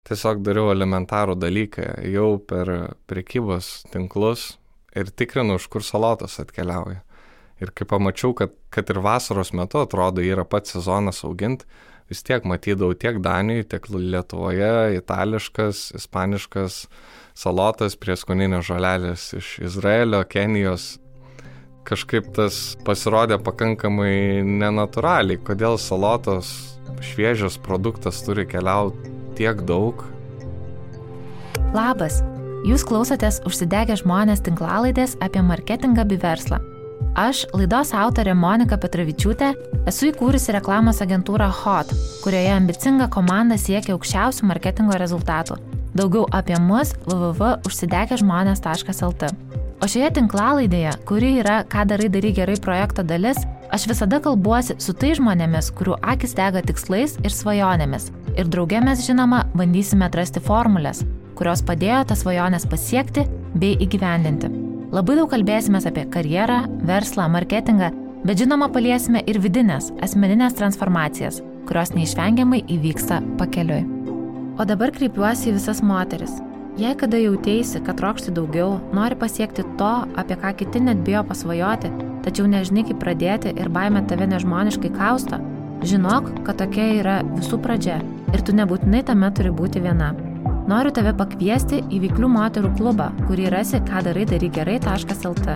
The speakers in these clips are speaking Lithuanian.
tiesiog dariau elementarų dalyką, jau per prekybos tinklus ir tikrinu, iš kur salotos atkeliauja. Ir kai pamačiau, kad ir vasaros metu atrodo yra pats sezonas auginti, vis tiek matydavau tiek Danijoje, tiek Lietuvoje, itališkas, ispaniškas salotas, prieskoninės žolelės iš Izraelio, Kenijos. Kažkaip tas pasirodė pakankamai nenatūraliai, kodėl salotos šviežias produktas turi keliauti tiek daug. Labas, jūs klausotės Užsidegę žmonės tinklalaidės apie marketingą bei verslą. Aš, laidos autorė Monika Petravičiūtė, esu įkūrusi reklamos agentūrą HOT, kurioje ambicinga komanda siekia aukščiausių marketingo rezultatų. Daugiau apie mus www.užsidegežmonės.lt. O šioje tinklalaidėje, kuri yra Ką darai gerai projekto dalis, aš visada kalbuosi su tai žmonėmis, kurių akis dega tikslais ir svajonėmis. Ir drauge mes, žinoma, bandysime atrasti formulės, kurios padėjo tas svajonės pasiekti bei įgyvendinti. Labai daug kalbėsime apie karjerą, verslą, marketingą, bet žinoma paliesime ir vidinės, asmeninės transformacijas, kurios neišvengiamai įvyksta pakeliui. O dabar kreipiuosi į visas moteris. Jei kada jautėsi, kad trokšti daugiau, nori pasiekti to, apie ką kiti net bijo pasvajoti, tačiau nežinai kaip pradėti ir baimė tave nežmoniškai kausto, žinok, kad tokia yra visų pradžia ir tu nebūtinai tame turi būti viena. Noriu tave pakviesti į Veiklių moterų klubą, kurį rasi kadarai-gerai.lt.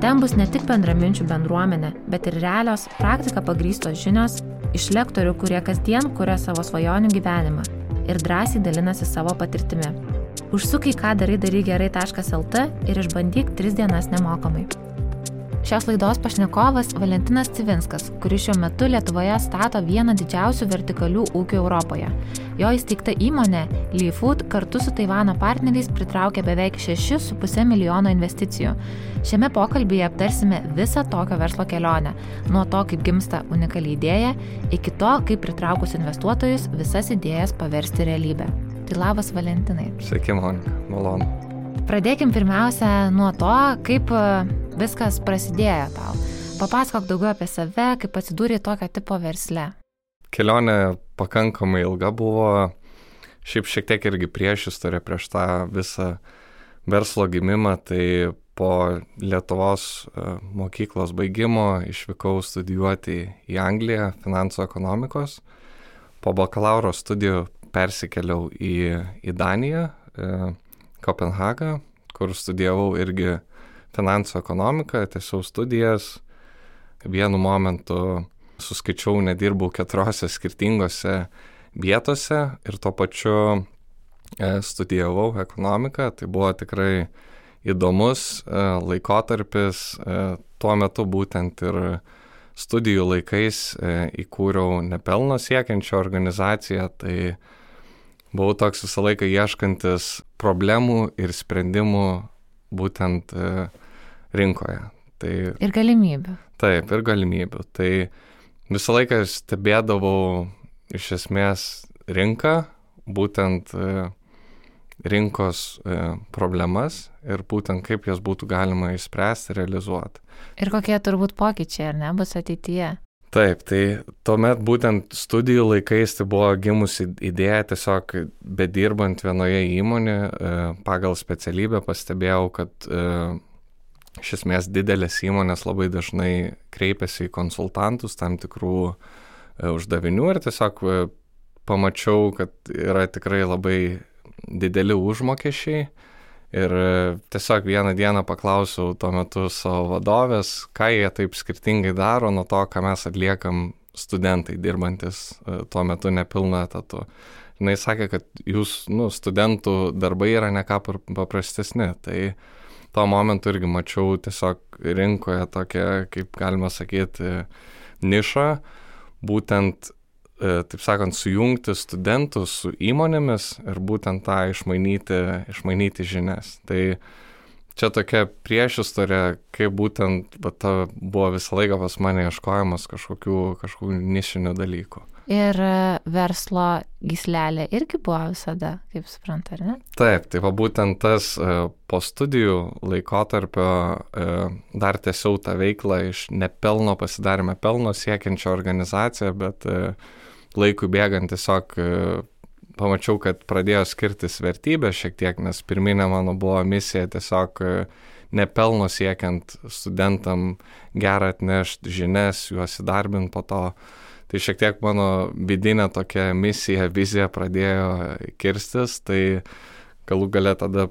Ten bus ne tik bendraminčių bendruomenė, bet ir realios, praktika pagrįstos žinios iš lektorių, kurie kasdien kuria savo svajonių gyvenimą ir drąsiai dalinasi savo patirtimi. Užsuk į kadarai-gerai.lt ir išbandyk 3 dienas nemokamai. Šios laidos pašnekovas Valentinas Civinskas, kuris šiuo metu Lietuvoje stato vieną didžiausių vertikalių ūkių Europoje. Jo įsteigta įmonė LeeFood kartu su Taivano partneriais pritraukė beveik 6,5 milijono investicijų. Šiame pokalbyje aptarsime visą tokio verslo kelionę, nuo to, kaip gimsta unikali idėja, iki to, kaip pritraukus investuotojus visas idėjas paversti realybę. Tai labas, Valentinai. Sveiki, Monika, malonu. Pradėkim pirmiausia nuo to, kaip viskas prasidėjo tau. Papasakok daugiau apie save, kaip atsidūrė tokio tipo versle. Kelionė pakankamai ilga buvo, šiek tiek irgi priešistorė prieš tą visą verslo gimimą, tai po Lietuvos mokyklos baigimo išvykau studijuoti į Angliją finansų ekonomikos. Po bakalauro studijų persikėliau į Daniją, Kopenhagą, kur studijavau irgi finansų ekonomiką, tęsiau studijas. Vienu momentu suskaičiau, nedirbau 4 skirtingose vietose ir tuo pačiu studijavau ekonomiką. Tai buvo tikrai įdomus laikotarpis. Tuo metu būtent ir studijų laikais įkūriau nepelno siekiančią organizaciją. Tai buvau toks visą laiką ieškantis problemų ir sprendimų būtent rinkoje. Tai, ir galimybių. Taip, ir galimybių. Tai visą laiką stebėdavau iš esmės rinką, būtent rinkos problemas ir būtent kaip jas būtų galima išspręsti, realizuoti. Ir kokie turbūt pokyčiai, ar ne, bus ateityje? Taip, tai tuomet būtent studijų laikais tai buvo gimusi idėja, tiesiog bedirbant vienoje įmonėje pagal specialybę pastebėjau, kad iš esmės didelės įmonės labai dažnai kreipiasi į konsultantus tam tikrų uždavinių ir tiesiog pamačiau, kad yra tikrai labai dideli užmokesčiai. Ir tiesiog vieną dieną paklausiau tuo metu savo vadovės, ką jie taip skirtingai daro nuo to, ką mes atliekam studentai dirbantis tuo metu nepilnu etatu. Jis sakė, kad studentų darbai yra ne ką paprastesni. Tai tuo momentu irgi mačiau tiesiog rinkoje tokią, kaip galima sakyti, nišą, būtent taip sakant, sujungti studentus su įmonėmis ir būtent tą išmainyti žinias. Tai čia tokia priešistorė, kaip būtent buvo visą laiką pas mane ieškojimas kažkokių nišinių dalykų. Ir verslo gyslelė irgi buvo visada, kaip supranta, ar ne? Taip, tai būtent tas po studijų laikotarpio dar tęsiau tą veiklą iš nepelno pasidarėme pelno siekiančią organizaciją, bet laikui bėgant tiesiog pamačiau, kad pradėjo skirtis vertybės šiek tiek, nes pirminė mano buvo misija tiesiog nepelno siekiant studentam gerą atnešti žinias, juos įdarbinti po to. Tai šiek tiek mano vidinė tokia misija, vizija pradėjo kirstis, tai galų gale tada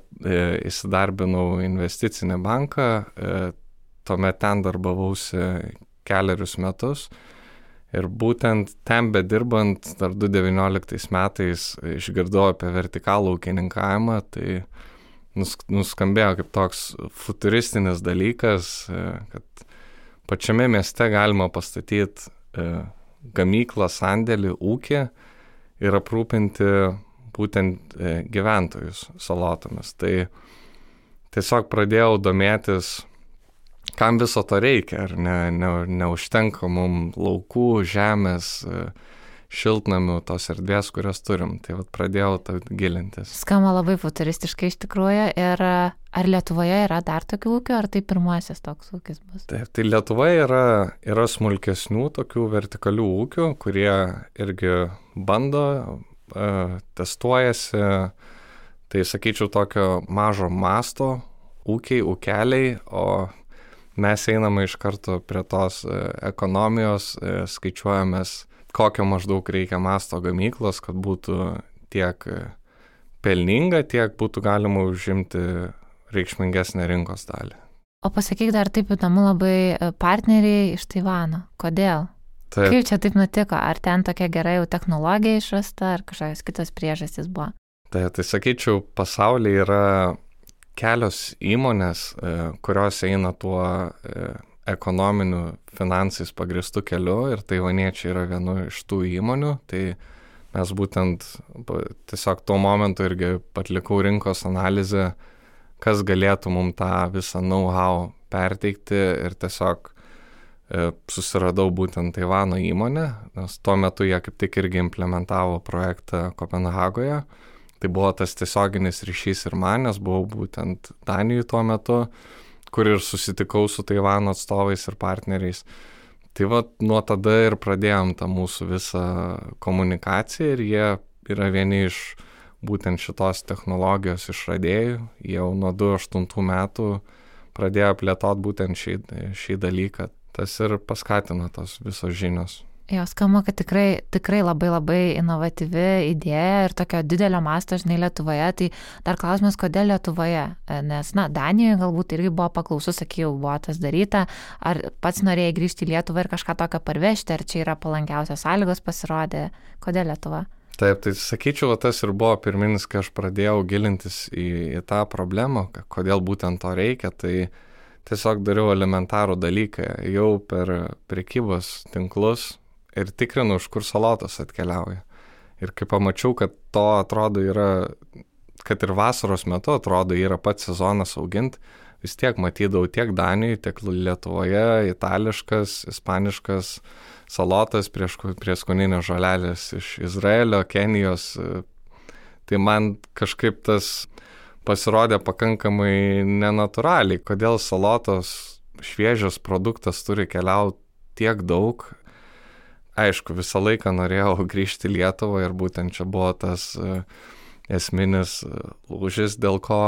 įsidarbinau investicinį banką, tuomet ten darbavausi 4 metus ir būtent ten bedirbant dar 2019 metais išgirdau apie vertikalų ūkininkavimą, tai nuskambėjo kaip toks futuristinis dalykas, kad pačiame mieste galima pastatyti gamyklą, sandėlį, ūkį ir aprūpinti būtent gyventojus salotomis. Tai tiesiog pradėjau domėtis, kam viso to reikia, ar neužtenka mums laukų, žemės, šiltnamių, tos erdvės, kurias turim. Tai vat pradėjau gilintis. Skamba labai futuristiškai iš tikrųjų. Ir ar Lietuvoje yra dar tokių ūkių, ar tai pirmasis toks ūkis bus? Taip, tai Lietuvoje yra smulkesnių tokių vertikalių ūkių, kurie irgi bando, testuojasi. Tai sakyčiau tokio mažo masto ūkeliai, o mes einame iš karto prie tos ekonomijos, skaičiuojamės, kokio maždaug reikia masto gamyklos, kad būtų tiek pelninga, tiek būtų galima užimti reikšmingesnę rinkos dalį. O pasakyk dar taip įdomu labai, partneriai iš Taivano. Kodėl? Taip. Kaip čia taip nutiko? Ar ten tokia gera jau technologija išrasta, ar kažkokios kitos priežastys buvo? Tai sakyčiau, pasaulyje yra kelios įmonės, kurios eina tuo ekonominiu finansais pagristų keliu ir taivaniečiai yra vienu iš tų įmonių. Tai mes būtent tiesiog tuo momentu irgi atlikau rinkos analizę, kas galėtų mums tą visą know-how perteikti ir tiesiog susiradau būtent Taivano įmonę, nes tuo metu jie kaip tik irgi implementavo projektą Kopenhagoje. Tai buvo tas tiesioginis ryšys ir man, nes buvau būtent Danijoje tuo metu, kur ir susitikau su Taivano atstovais ir partneriais. Tai va, nuo tada ir pradėjom tą mūsų visą komunikaciją ir jie yra vieni iš būtent šitos technologijos išradėjų. Jau nuo 2008 metų pradėjo plėtoti būtent šį dalyką. Tas ir paskatino tos visos žinios. Jo, skamba, kad tikrai labai inovatyvi idėja ir tokio didelio masto, žinai, Lietuvoje. Tai dar klausimas, kodėl Lietuvoje? Nes, Danijoje galbūt irgi buvo paklausu, sakiau, buvo tas daryta. Ar pats norėjai grįžti į Lietuvą ir kažką tokio parvežti, ar čia yra palankiausios sąlygos pasirodė? Kodėl Lietuva? Taip, tai sakyčiau, tas ir buvo pirminis, kai aš pradėjau gilintis į tą problemą, kodėl būtent to reikia. Tai tiesiog dariau elementarų dalyką. Jau per prekybos tinklus ir tikrinu, iš kur salotos atkeliauja. Ir kai pamačiau, kad to atrodo yra, kad ir vasaros metu atrodo yra pats sezonas auginti, vis tiek matydavau tiek Danijoje, tiek Lietuvoje, itališkas, ispaniškas salotas, prieskoninės žolelės iš Izraelio, Kenijos. Tai man kažkaip tas pasirodė pakankamai nenatūraliai, kodėl salotos šviežias produktas turi keliauti tiek daug. Aišku, visą laiką norėjau grįžti į Lietuvą ir būtent čia buvo tas esminis lūžis, dėl ko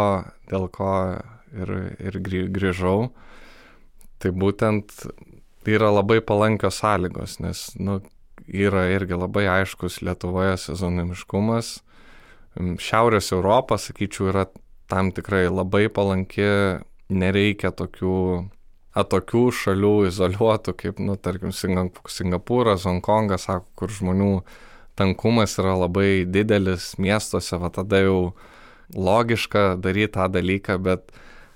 ir grįžau. Tai būtent yra labai palankios sąlygos, nes yra irgi labai aiškus Lietuvoje sezonimiškumas. Šiaurės Europa, sakyčiau, yra tam tikrai labai palanki, nereikia tokių atokių šalių, izoliuotų, kaip, tarkim, Singapūras, Hongkongas, sako, kur žmonių tankumas yra labai didelis miestuose, va tada jau logiška daryti tą dalyką, bet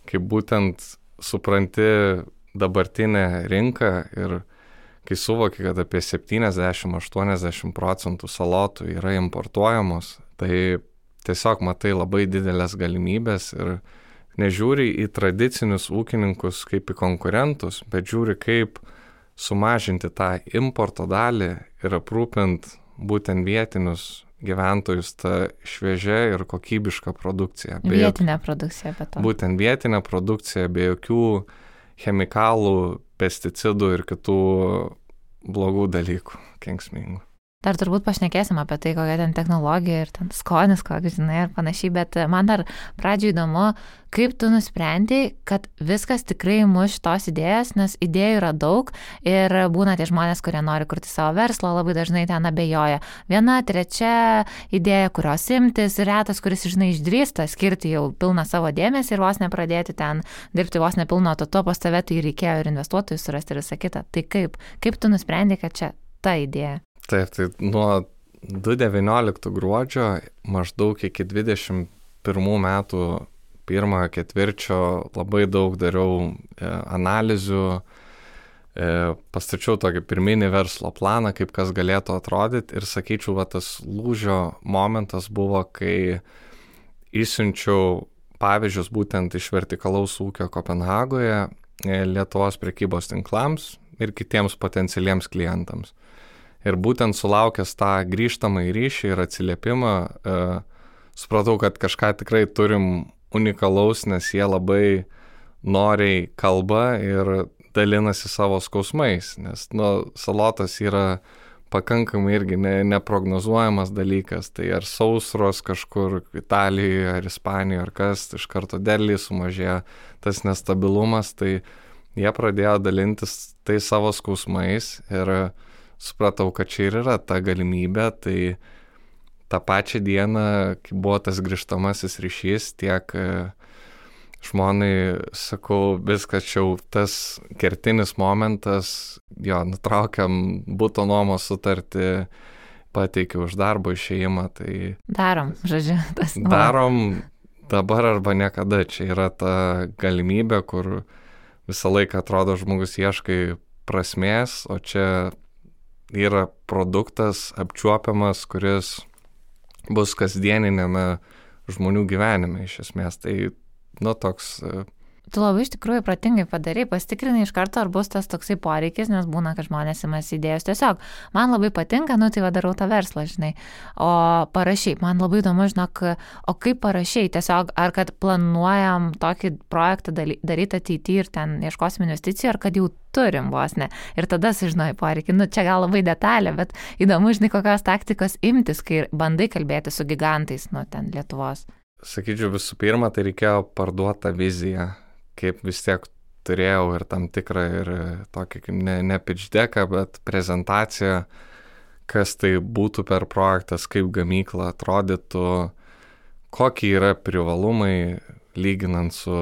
kaip būtent supranti dabartinę rinką ir kai suvoki, kad apie 70-80% salotų yra importuojamos, tai tiesiog matai labai didelės galimybės ir nežiūri į tradicinius ūkininkus kaip į konkurentus, bet žiūri kaip sumažinti tą importo dalį ir aprūpint būtent vietinius gyventojus tą šviežią ir kokybišką produkciją. Vietinę produkciją, bet to. Būtent vietinę produkciją be jokių chemikalų, pesticidų ir kitų blogų dalykų, kenksmingų. Dar turbūt pašnekėsim apie tai, kokia ten technologija ir ten skonis, koks, žinai, ir panašiai, bet man dar pradžioj įdomu, kaip tu nusprendei, kad viskas tikrai muš šitos idėjas, nes idėjų yra daug ir būna tie žmonės, kurie nori kurti savo verslą, labai dažnai ten abejoja. Viena, trečia idėja, kurios imtis, retas, kuris, žinai, išdrįsta skirti jau pilną savo dėmesį ir vos nepradėti ten dirbti vos nepilno to pas tave, tai reikėjo ir investuotojų surasti ir visą kitą. Tai kaip tu nusprendei, kad čia ta idėja? Taip, tai nuo 2019 gruodžio maždaug iki 2021 metų pirmojo ketvirčio labai daug dariau analizių, pastačiau tokį pirminį verslo planą, kaip kas galėtų atrodyti ir sakyčiau, va, tas lūžio momentas buvo, kai išsiunčiau pavyzdžius būtent iš vertikalaus ūkio Kopenhagoje Lietuvos prekybos tinklams ir kitiems potencialiems klientams. Ir būtent sulaukęs tą grįžtamą į ryšį ir atsiliepimą, supratau, kad kažką tikrai turim unikalaus, nes jie labai noriai kalba ir dalinasi savo skausmais, nes salotas yra pakankamai irgi neprognozuojamas dalykas, tai ar sausros kažkur Italijoje ar Ispanijoje ar kas, iš karto derliai sumažėjo tas nestabilumas, tai jie pradėjo dalintis tai savo skausmais ir supratau, kad čia ir yra ta galimybė, tai tą pačią dieną, kai buvo tas grįžtamasis ryšys, tiek žmonai sakau, viskas čia jau tas kertinis momentas, jo, nutraukiam buto nuomos sutartį, pateikiau už darbo išėjimą, tai... Darom, žodžiu, tas... Darom dabar arba niekada, čia yra ta galimybė, kur visą laiką atrodo žmogus ieškai prasmės, o čia yra produktas apčiuopiamas, kuris bus kasdieninėme žmonių gyvenime iš esmės. Tai, toks... Tu labai iš tikrųjų protingai padarai, pasitikrinai iš karto, ar bus tas toksai poreikis, nes būna, kad žmonės imasi idėjos. Tiesiog, man labai patinka, tai darau tą verslą, žinai. O parašai, man labai įdomu, žinok, o kaip parašai, tiesiog, ar kad planuojam tokį projektą daryti ateityje ir ten ieškosim investicijų, ar kad jau turim vos ne. Ir tada sužinai poreikį. Čia gal labai detalė, bet įdomu, žinai, kokios taktikos imtis, kai bandai kalbėti su gigantais, ten Lietuvos. Sakyčiau, visų pirma, tai reikėjo parduoti tą viziją, kaip vis tiek turėjau ir tam tikrą ir tokį, kaip ne pitch decką, bet prezentaciją, kas tai būtų per projektas, kaip gamykla atrodytų, kokie yra privalumai lyginant su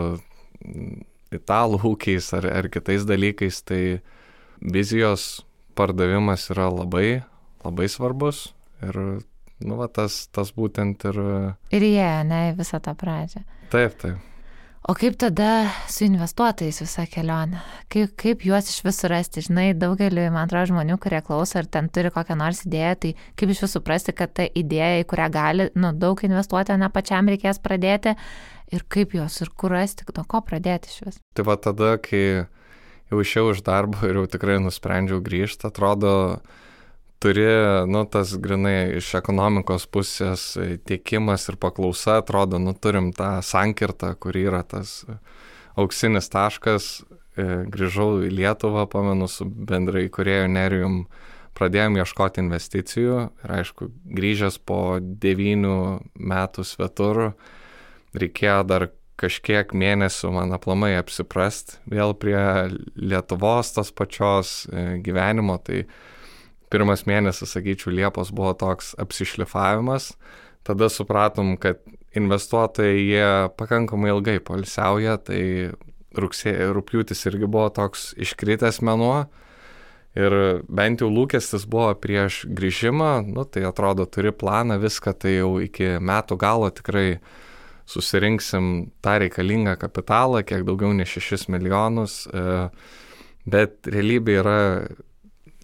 italų ūkiais ar kitais dalykais, tai vizijos pardavimas yra labai, labai svarbus ir tas būtent ir... Ir jie, ne, visą tą pradžią. Taip. O kaip tada su investuotojais visą kelionę? Kaip juos iš visų rasti? Žinai, daugeliu, man atrodo, žmonių, kurie klauso ar ten turi kokią nors idėją, tai kaip iš visų suprasti, kad ta idėja, į kurią gali daug investuoti, ne pačiam reikės pradėti ir kaip juos ir kur rasti, nuo ko pradėti iš vis? Tai va tada, kai jau išėjau iš darbo ir jau tikrai nusprendžiau grįžti, atrodo, turi, tas grinai iš ekonomikos pusės tiekimas ir paklausa, atrodo, turim tą sankirtą, kur yra tas auksinis taškas. Grįžau į Lietuvą, pamenu, su bendrai įkūrėju Nerijum, pradėjom ieškoti investicijų ir aišku, grįžęs po 9 metų svetur, reikėjo dar kažkiek mėnesių man aplamai apsiprast vėl prie Lietuvos tos pačios gyvenimo, tai pirmas mėnesis, sakyčiau, Liepos buvo toks apsišlifavimas, tada supratom, kad investuotojai jie pakankamai ilgai poilsiauja, tai rugpjūtis irgi buvo toks iškritęs mėnuo ir bent jau lūkestis buvo prieš grįžimą, tai atrodo turi planą, viską, tai jau iki metų galo tikrai susirinksim tą reikalingą kapitalą, kiek daugiau nei 6 milijonus, bet realybė yra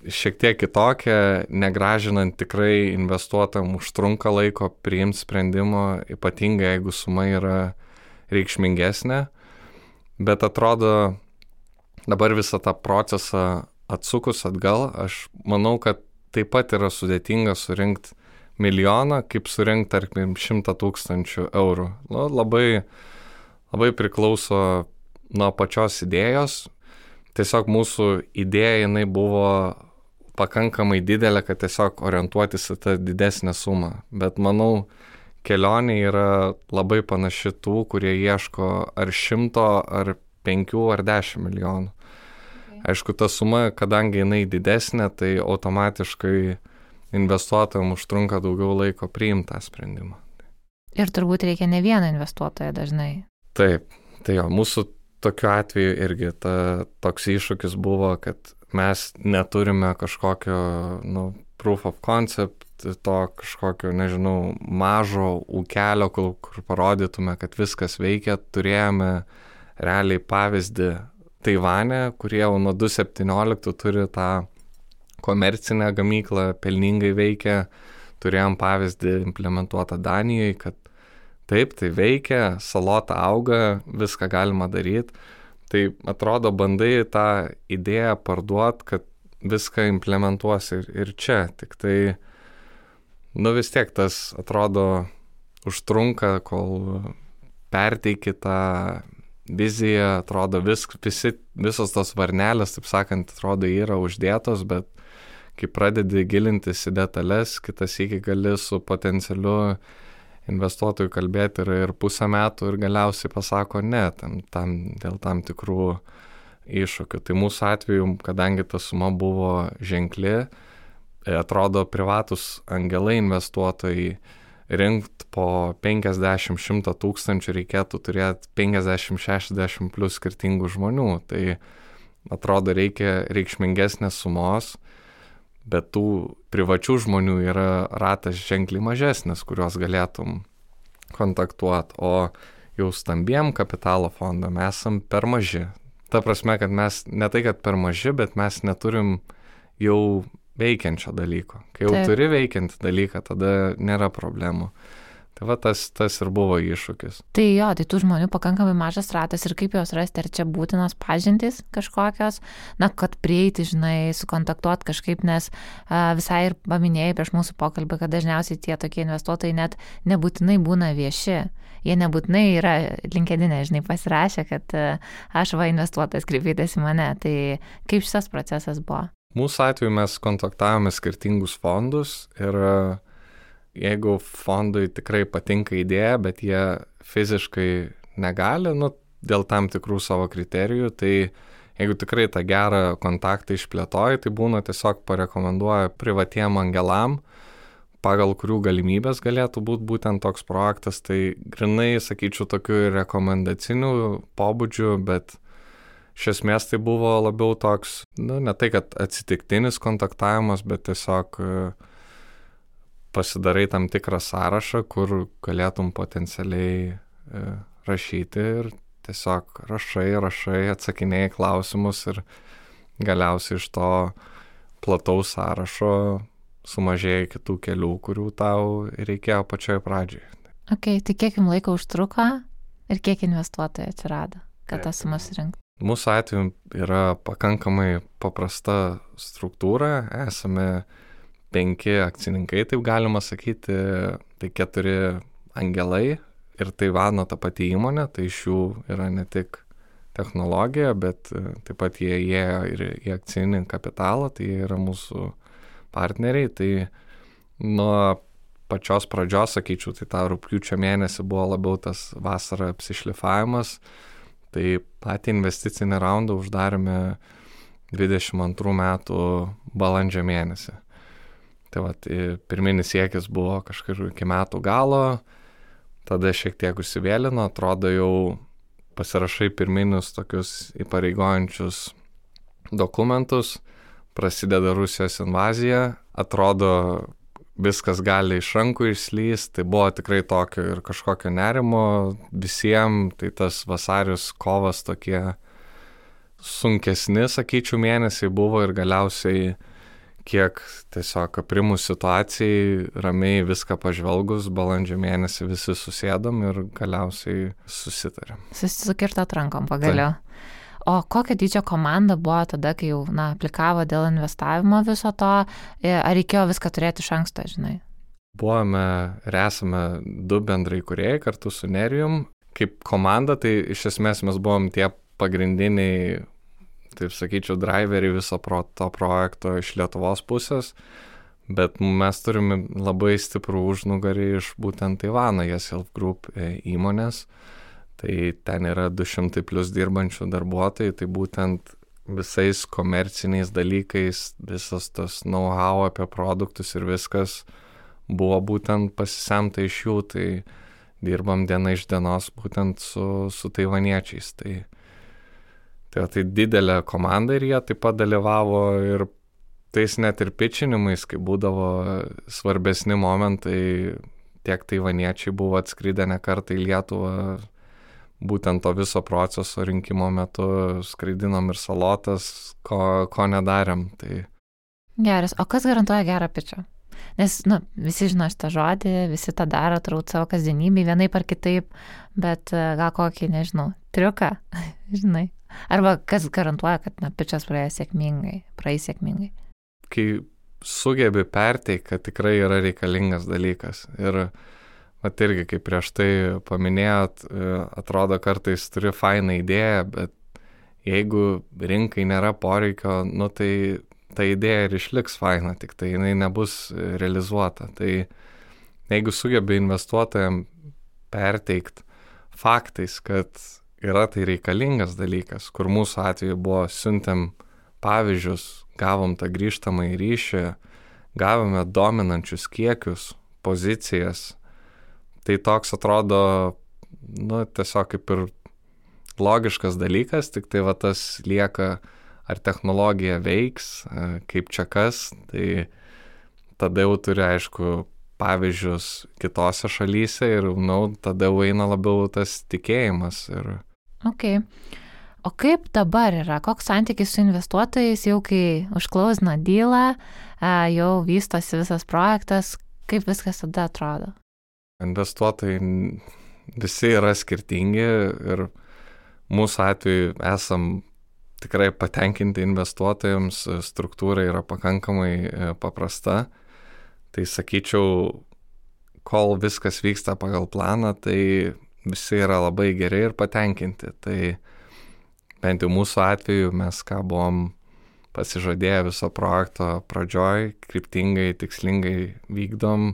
šiek tiek kitokia, negražinant tikrai investuotam užtrunka laiko priimti sprendimo, ypatingai jeigu suma yra reikšmingesnė, bet atrodo dabar visą tą procesą atsukus atgal, aš manau, kad taip pat yra sudėtinga surinkti milijoną, kaip surinkti, tarkim, 100 000 eurų. Labai, labai priklauso nuo pačios idėjos. Tiesiog mūsų idėja, jinai buvo pakankamai didelė, kad tiesiog orientuotis į tą didesnę sumą. Bet manau, kelionė yra labai panaši tų, kurie ieško ar 100, ar 5, ar 10 milijonų. Aišku, ta suma, kadangi jinai didesnė, tai automatiškai investuotojams užtrunka daugiau laiko priimti tą sprendimą. Ir turbūt reikia ne vieną investuotoją dažnai. Taip, tai jo, mūsų tokiu atveju irgi toks iššūkis buvo, kad mes neturime kažkokio proof of concept, to kažkokio, nežinau, mažo ūkelio, kur parodytume, kad viskas veikia. Turėjome realiai pavyzdį Taivane, kurie jau nuo 2017 turi tą komercinę gamyklą, pelningai veikia. Turėjom pavyzdį implementuotą Danijoje, kad taip, tai veikia, salota auga, viską galima daryti. Tai atrodo, bandai tą idėją parduoti, kad viską implementuosi ir čia. Tik tai, vis tiek tas atrodo užtrunka, kol perteiki tą viziją, atrodo visos tos varnelės, taip sakant, atrodo yra uždėtos, bet kai pradedi gilintis į detalės, kitas iki gali su potencialiu investuotojų kalbėti ir pusę metų ir galiausiai pasako ne, dėl tam tikrų iššūkių. Tai mūsų atveju, kadangi ta suma buvo ženkli, atrodo privatus angelai investuotojai rinkt po 50-100 tūkstančių reikėtų turėti 50-60 plus skirtingų žmonių. Tai atrodo reikia reikšmingesnės sumos, bet tų privačių žmonių yra ratas ženkliai mažesnis, kuriuos galėtum kontaktuoti, o jau stambiem kapitalo fondam esam per maži. Ta prasme, kad mes ne tai, kad per maži, bet mes neturim jau veikiančio dalyko. Kai jau turi veikiantį dalyką, tada nėra problemų. Tai va tas ir buvo iššūkis. Tai jo, tai tų žmonių pakankamai mažas ratas ir kaip juos rasti, ar čia būtinos pažintys kažkokios, kad prieiti, sukontaktuoti kažkaip, nes visai ir paminėjai prieš mūsų pokalbį, kad dažniausiai tie tokie investuotojai net nebūtinai būna vieši. Jie nebūtinai yra LinkedIne, pasirašę, kad aš investuotojas, kreipėtės į mane. Tai kaip šitas procesas buvo? Mūsų atveju mes kontaktavome skirtingus fondus ir jeigu fondui tikrai patinka idėja, bet jie fiziškai negali, dėl tam tikrų savo kriterijų, tai jeigu tikrai tą gerą kontaktą išplėtoji, tai būna tiesiog parekomenduoja privatiem angelam, pagal kurių galimybės galėtų būti būtent toks projektas. Tai grinai, sakyčiau, tokių rekomendacinių pobūdžių, bet iš esmės tai buvo labiau toks, ne tai, kad atsitiktinis kontaktavimas, bet tiesiog pasidarai tam tikrą sąrašą, kur galėtum potencialiai rašyti ir tiesiog rašai, atsakinėjai klausimus ir galiausiai iš to plataus sąrašo sumažėja kitų kelių, kurių tau reikėjo pačioje pradžioje. Ok, tai kiek jums laiko užtruko ir kiek investuotojų atsirado, kad tą sumą surinkti? Mūsų atveju yra pakankamai paprasta struktūra, esame 5 akcininkai, taip galima sakyti, tai 4 angelai ir Taivano ta pati įmonė, tai iš jų yra ne tik technologija, bet taip pat jie įėjo ir į akcinį kapitalą, tai jie yra mūsų partneriai. Tai nuo pačios pradžios, sakyčiau, tai tą rugpjūčio mėnesį buvo labiau tas vasara apsišlifavimas. Tai patį investicinį raundą uždarėme 22 metų balandžio mėnesį. Tai pirminis siekis buvo kažkur iki metų galo, tada šiek tiek užsivėlino, atrodo jau pasirašai pirminius tokius įpareigojančius dokumentus, prasideda Rusijos invazija, atrodo viskas gali iš rankų išslysti, tai buvo tikrai tokio ir kažkokio nerimo visiems, tai tas vasaris, kovas tokie sunkesni, sakyčiau, mėnesiai buvo ir galiausiai kiek tiesiog aprimus situacijai, ramiai viską pažvelgus, balandžio mėnesį visi susėdom ir galiausiai susitarėm. Susikirtot rankom pagaliau. O kokia dydžio komanda buvo tada, kai jau aplikavo dėl investavimo viso to, ar reikėjo viską turėti iš anksto, Buvome ir esame 2 bendrai kūrėjai kartu su Nerijum. Kaip komanda, tai iš esmės mes buvom tie pagrindiniai taip sakyčiau, driveriai viso to projekto iš Lietuvos pusės, bet mes turime labai stiprų užnugarį iš būtent Taivano YesHealth Group įmonės. Tai ten yra 200 plus dirbančių darbuotojų, tai būtent visais komerciniais dalykais, visas tas know-how apie produktus ir viskas buvo būtent pasisemta iš jų, tai dirbam diena iš dienos būtent su taivaniečiais. Tai didelė komanda ir jie taip pat dalyvavo ir tais net ir pitchinimais, kai būdavo svarbesni momentai, tiek taivaniečiai buvo atskridę ne kartą į Lietuvą, būtent to viso proceso rinkimo metu skraidinom ir salotas, ko nedarėm. Tai... Geras, o kas garantuoja gerą pitchą? Nes, visi žino šitą žodį, visi tą daro, turbūt savo kasdienybėj, vienaip ar kitaip, bet gal kokį, nežinau, triuką, žinai. Arba kas garantuoja, kad pitchas praeis sėkmingai. Kai sugebi perteikti, kad tikrai yra reikalingas dalykas. Ir vat irgi, kaip prieš tai paminėjot, atrodo kartais turi fainą idėją, bet jeigu rinkai nėra poreikio, tai ta idėja ir išliks faina, tik tai jinai nebus realizuota. Tai jeigu sugebi investuotojams perteikti faktais, kad yra tai reikalingas dalykas, kur mūsų atveju buvo siuntėm pavyzdžius, gavom tą grįžtamą į ryšį, gavome dominančius kiekius, pozicijas, tai toks atrodo, tiesiog kaip ir logiškas dalykas, tik tai va tas lieka, ar technologija veiks, kaip čia kas, tai tada jau turi, aišku, pavyzdžius kitose šalyse ir, tada jau eina labiau tas tikėjimas. Ok. O kaip dabar yra? Koks santykis su investuotojais, jau kai užklausina dealą, jau vystosi visas projektas, kaip viskas tada atrodo? Investuotojai visi yra skirtingi ir mūsų atveju esam tikrai patenkinti investuotojams, struktūra yra pakankamai paprasta. Tai sakyčiau, kol viskas vyksta pagal planą, tai visi yra labai geri ir patenkinti. Tai bent jau mūsų atveju mes ką buvom pasižadėję viso projekto pradžioj, kryptingai, tikslingai vykdom,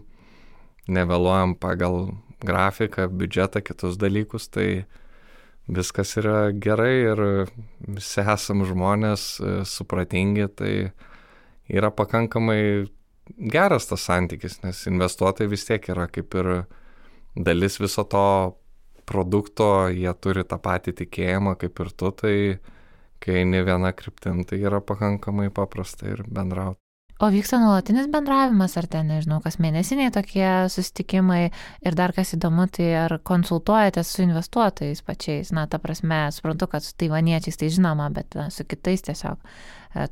nevėluojam pagal grafiką, biudžetą, kitus dalykus, tai viskas yra gerai ir visi esam žmonės supratingi, tai yra pakankamai geras tas santykis, nes investuotojai vis tiek yra kaip ir dalis viso to produkto, jie turi tą patį tikėjimą kaip ir tu, tai kai eini viena kryptim, tai yra pakankamai paprasta ir bendrauti. O vyksta nuolatinis bendravimas, ar ten, nežinau, kas mėnesiniai tokie susitikimai ir dar kas įdomu, tai ar konsultuojatės su investuotojais pačiais? Ta prasme, suprantu, kad su taivaniečiais tai žinoma, bet su kitais tiesiog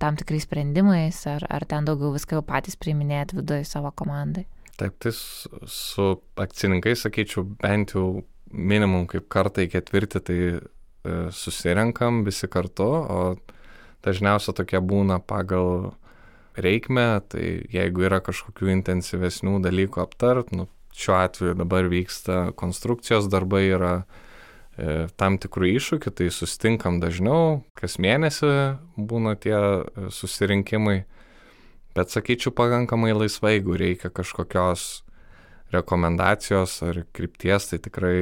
tam tikrais sprendimais, ar ten daugiau viską jau patys priiminėjat viduje savo komandai? Taip, tai su akcininkais, sakyčiau, bent jau minimum kaip kartą į ketvirtį, tai susirenkam visi kartu, o dažniausiai tokie būna pagal reikmę, tai jeigu yra kažkokių intensyvesnių dalykų aptart, šiuo atveju dabar vyksta konstrukcijos darbai, yra tam tikrų iššūkių, tai susitinkam dažniau, kas mėnesį būna tie susirinkimai, bet sakyčiau pakankamai laisvai, jeigu reikia kažkokios rekomendacijos ar krypties, tai tikrai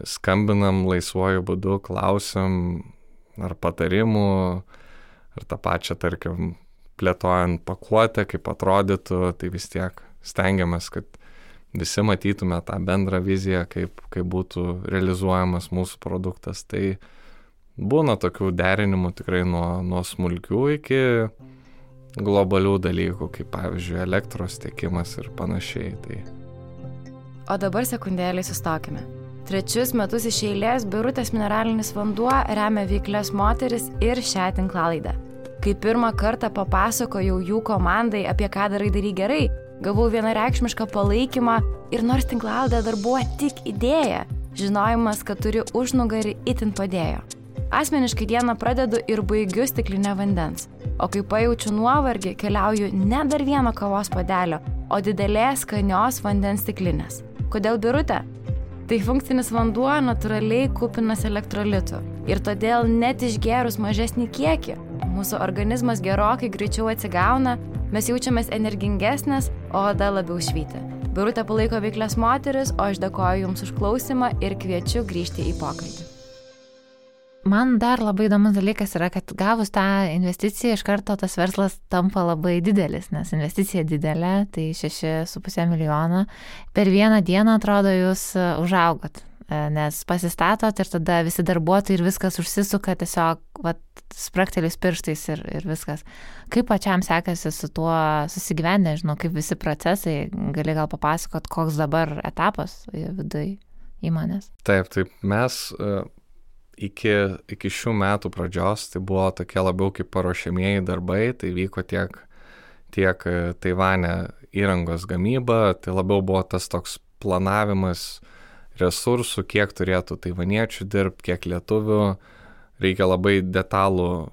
skambinam laisvuoju būdu, klausim ar patarimų, ar tą pačią, tarkim, plėtojant pakuotę, kaip atrodytų, tai vis tiek stengiamės, kad visi matytume tą bendrą viziją, kaip būtų realizuojamas mūsų produktas. Tai būna tokių derinimų tikrai nuo smulkių iki globalių dalykų, kaip pavyzdžiui elektros tiekimas ir panašiai. Tai. O dabar sekundėlį sustokime. 3 metus iš eilės Birutės mineralinis vanduo remia veiklias moteris ir šią tinklalaidę. Kai pirmą kartą papasakojau jų komandai, apie ką darai gerai, gavau vienareikšmišką palaikymą ir nors tinklalaidė dar buvo tik idėja, žinojimas, kad turi užnugarį itin padėjo. Asmeniškai dieną pradedu ir baigiu stiklinę vandens, o kai pajaučiu nuovargį, keliauju ne dar vieno kavos puodelio, o didelės skanios vandens stiklinės. Kodėl Birutė? Tai funkcinis vanduo natūraliai kupinas elektrolitų ir todėl net išgėrus mažesnį kiekį, mūsų organizmas gerokai greičiau atsigauna, mes jaučiamės energingesnės, o oda labiau švyti. Birutė palaiko veiklias moteris, o aš dėkoju Jums už klausimą ir kviečiu grįžti į pokalbį. Man dar labai įdomus dalykas yra, kad gavus tą investiciją iš karto tas verslas tampa labai didelis, nes investicija didelė, tai 6,5 milijono. Per vieną dieną, atrodo, jūs užaugot, nes pasistatot ir tada visi darbuotojai ir viskas užsisuka tiesiog sprakteliais pirštais ir viskas. Kaip pačiam sekasi su tuo susigyventi, nežinau, kaip visi procesai, gali gal papasakot, koks dabar etapas viduje įmonės? Taip, mes iki šių metų pradžios tai buvo tokie labiau kaip paruošiamieji darbai, tai vyko tiek Taivane įrangos gamyba, tai labiau buvo tas toks planavimas resursų, kiek turėtų taivaniečių dirbti, kiek lietuvių, reikia labai detalų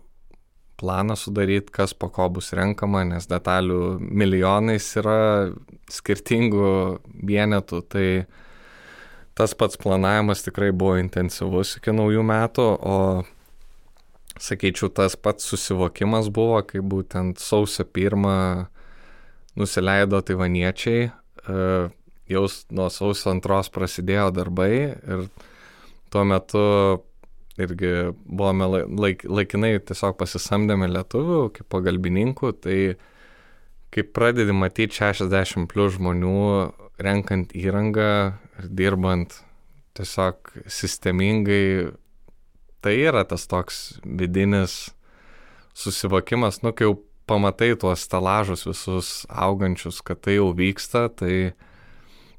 planą sudaryti, kas po ko bus renkama, nes detalių milijonais yra skirtingų vienetų, tai tas pats planavimas tikrai buvo intensyvus iki naujų metų, o sakyčiau, tas pats susivokimas buvo, kai būtent sausio 1 nusileido taivaniečiai, jau nuo sausio 2 prasidėjo darbai ir tuo metu irgi buvome laikinai tiesiog pasisamdėme lietuvių kaip pagalbininkų, tai kai pradedi matyti 60 plus žmonių renkant įrangą ir dirbant tiesiog sistemingai, tai yra tas toks vidinis susivokimas, kai jau pamatai tuos stelažus visus augančius, kad tai jau vyksta, tai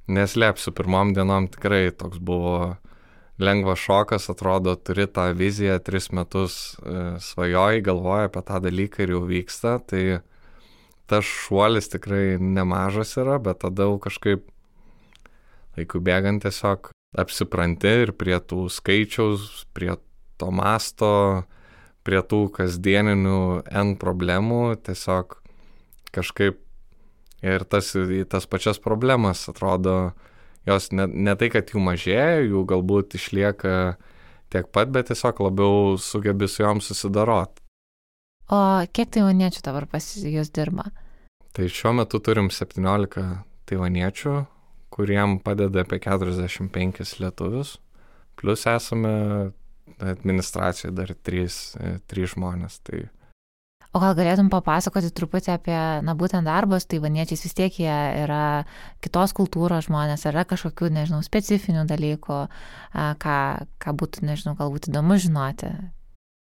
neslėpsiu, pirmom dienom tikrai toks buvo lengvas šokas, atrodo, turi tą viziją, 3 metus svajoji, galvoji apie tą dalyką ir jau vyksta, tai tas šuolis tikrai nemažas yra, bet tada jau kažkaip laikų bėgant tiesiog apsipranti ir prie tų skaičiaus, prie to masto, prie tų kasdieninių N problemų, tiesiog kažkaip ir tas pačias problemas atrodo, jos ne tai, kad jų mažėja, jų galbūt išlieka tiek pat, bet tiesiog labiau sugebi su jom susidarot. O kiek taivaniečių dabar pas jūs dirba? Tai šiuo metu turim 17 taivaniečių, kuriem padeda apie 45 lietuvius, plus esame administracijoje dar 3 žmonės. Tai... O gal galėtum papasakoti truputį apie, būtent darbas, taivaniečiais vis tiek jie yra kitos kultūros žmonės, yra kažkokių, specifinių dalykų, ką būtų, galbūt įdomu žinoti.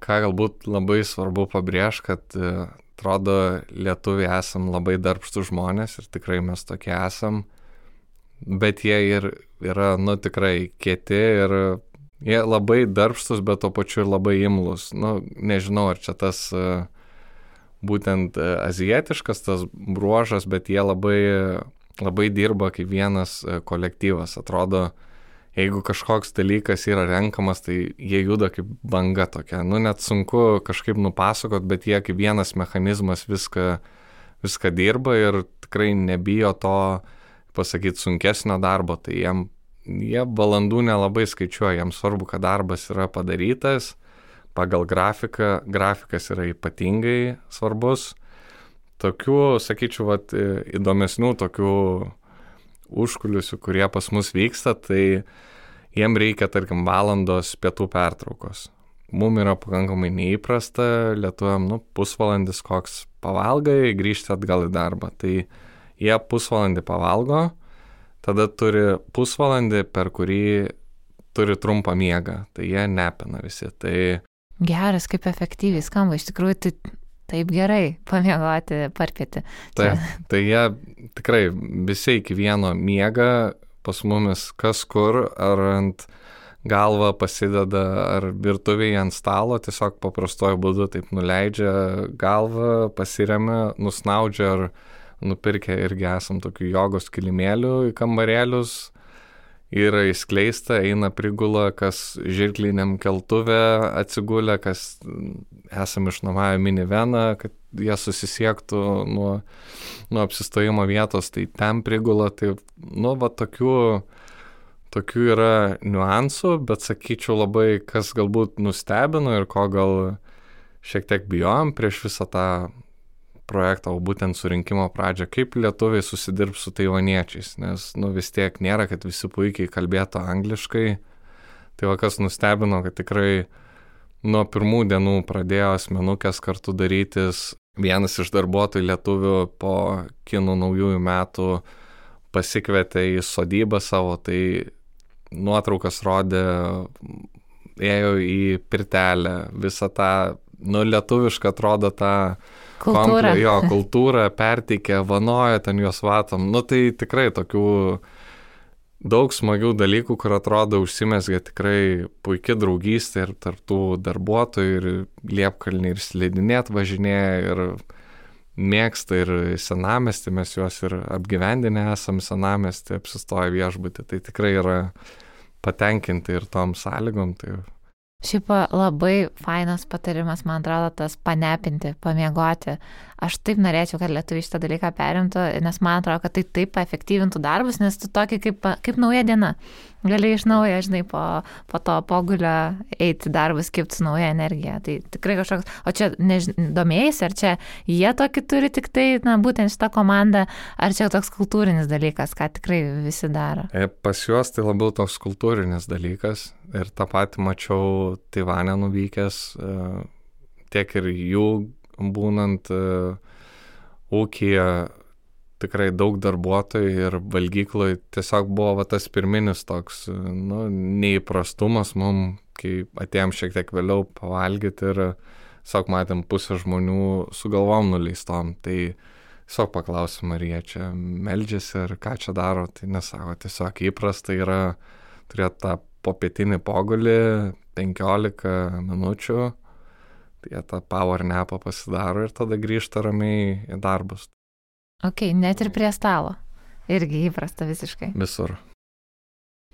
Ką galbūt labai svarbu pabrėžti, kad atrodo, lietuviai esam labai darbštus žmonės ir tikrai mes tokie esam, bet jie ir yra, tikrai kieti ir jie labai darbštus, bet tuo pačiu ir labai imlus. Nežinau, ar čia tas būtent azijietiškas tas bruožas, bet jie labai dirba kaip vienas kolektyvas. Atrodo, jeigu kažkoks dalykas yra renkamas, tai jie juda kaip banga tokia. Net sunku kažkaip nupasakot, bet jie kaip vienas mechanizmas viską dirba ir tikrai nebijo to, pasakyti, sunkesnio darbo. Tai jie valandų nelabai skaičiuoja, jiems svarbu, kad darbas yra padarytas pagal grafiką. Grafikas yra ypatingai svarbus. Tokių, sakyčiau, įdomesnių tokių užkulisių, kurie pas mus vyksta, tai jiem reikia, tarkim, valandos pietų pertraukos. Mum yra pakankamai neįprasta, lietuviam, pusvalandis koks pavalgai, grįžti atgal į darbą. Tai jie pusvalandį pavalgo, tada turi pusvalandį, per kurį turi trumpą miegą. Tai jie nepina visi. Tai... Geras, kaip efektyviai skamba. Iš tikrųjų, tai taip gerai pamiegoti, parpėti. Tai jie tikrai visi iki vieno miega, pas mumis kas kur, ar ant galvą pasideda, ar virtuvėje ant stalo, tiesiog paprastuoju būdu taip nuleidžia galvą, pasiremia, nusnaudžia, ar nupirkę irgi esam tokių jogos kilimėlių į kambarėlius, yra įskleista, eina prigula, kas žirkliniam keltuvė atsigulę, kas esam išnuomavę miniveną, kad jie susisiektų nuo tokių yra niuansų, bet sakyčiau labai, kas galbūt nustebino ir ko gal šiek tiek bijom prieš visą tą projektą, o būtent surinkimo pradžią, kaip lietuviai susidirbs su taivaniečiais, nes vis tiek nėra, kad visi puikiai kalbėtų angliškai. Tai kas nustebino, kad tikrai nuo pirmų dienų pradėjo asmenukės kartu darytis. Vienas iš darbuotojų lietuvių po kinų naujųjų metų pasikvietė į sodybą savo, tai nuotraukas rodė, ėjo į pirtelę, visą tą, lietuvišką atrodo tą kultūrą perteikė, vanojo ten juos vatom. Tai tikrai tokių daug smagių dalykų, kur atrodo užsimezgė tikrai puikia draugystė ir tarptų darbuotojų ir Liepkalnį ir slidinėt važinėja ir mėgsta ir senamiestį, mes juos ir apgyvendinę esam senamiestį, apsistoję viešbutį, tai tikrai yra patenkinti ir tom sąlygom. Tai... Šiaip labai fainas patarimas, man atrodo, tas panepinti, pamiegoti. Aš taip norėčiau, kad lietuviai šitą dalyką perimtų, nes man atrodo, kad tai taip efektyvintų darbus, nes tu tokį kaip nauja diena. Gali iš naujo, žinai, po to pogulio eiti darbus, kibti su nauja energija. Tai tikrai kažkoks, o čia domėjais, ar čia jie tokį turi tik tai, būtent šitą komandą, ar čia toks kultūrinis dalykas, ką tikrai visi daro? Pas juos tai labiau toks kultūrinis dalykas ir tą patį mačiau Taivane nuvykęs, tiek ir jų būnant ūkyje tikrai daug darbuotojų ir valgykloj tiesiog buvo tas pirminis toks neįprastumas mum, kai atėjom šiek tiek vėliau pavalgyti ir tiesiog matėm pusę žmonių su galvom nuleistom, tai tiesiog paklausėm, ar jie čia meldžiasi ar ką čia daro, tai nesako, tiesiog įprasta yra turėti tą popietinį pogulį 15 minučių, tai jie tą power napą pasidaro ir tada grįžta ramiai į darbus. Ok, net ir prie stalo. Irgi įprasta visiškai. Visur.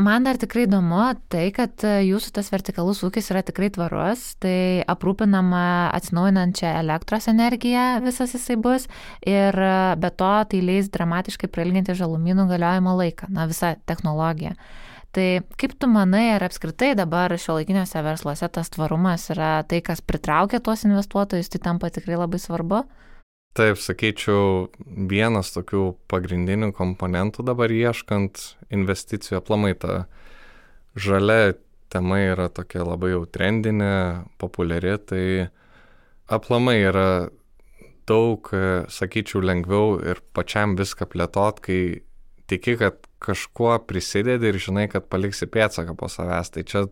Man dar tikrai įdomu tai, kad jūsų tas vertikalus ūkis yra tikrai tvarus, tai aprūpinama atsinaujinančią elektros energiją visas jisai bus ir be to tai leis dramatiškai prailginti žalumynų galiojimo laiką, visa technologija. Tai kaip tu manai, ar apskritai dabar šiuolaikiniuose versluose tas tvarumas yra tai, kas pritraukia tuos investuotojus, tai tampa tikrai labai svarbu? Taip, sakyčiau, vienas tokių pagrindinių komponentų dabar ieškant investicijų, aplamai ta žalia tema yra tokia labai jau trendinė, populiari, tai aplamai yra daug, sakyčiau, lengviau ir pačiam viską plėtot, kai tiki, kad kažkuo prisidedi ir žinai, kad paliksi pėdsaką po savęs. Tai čia,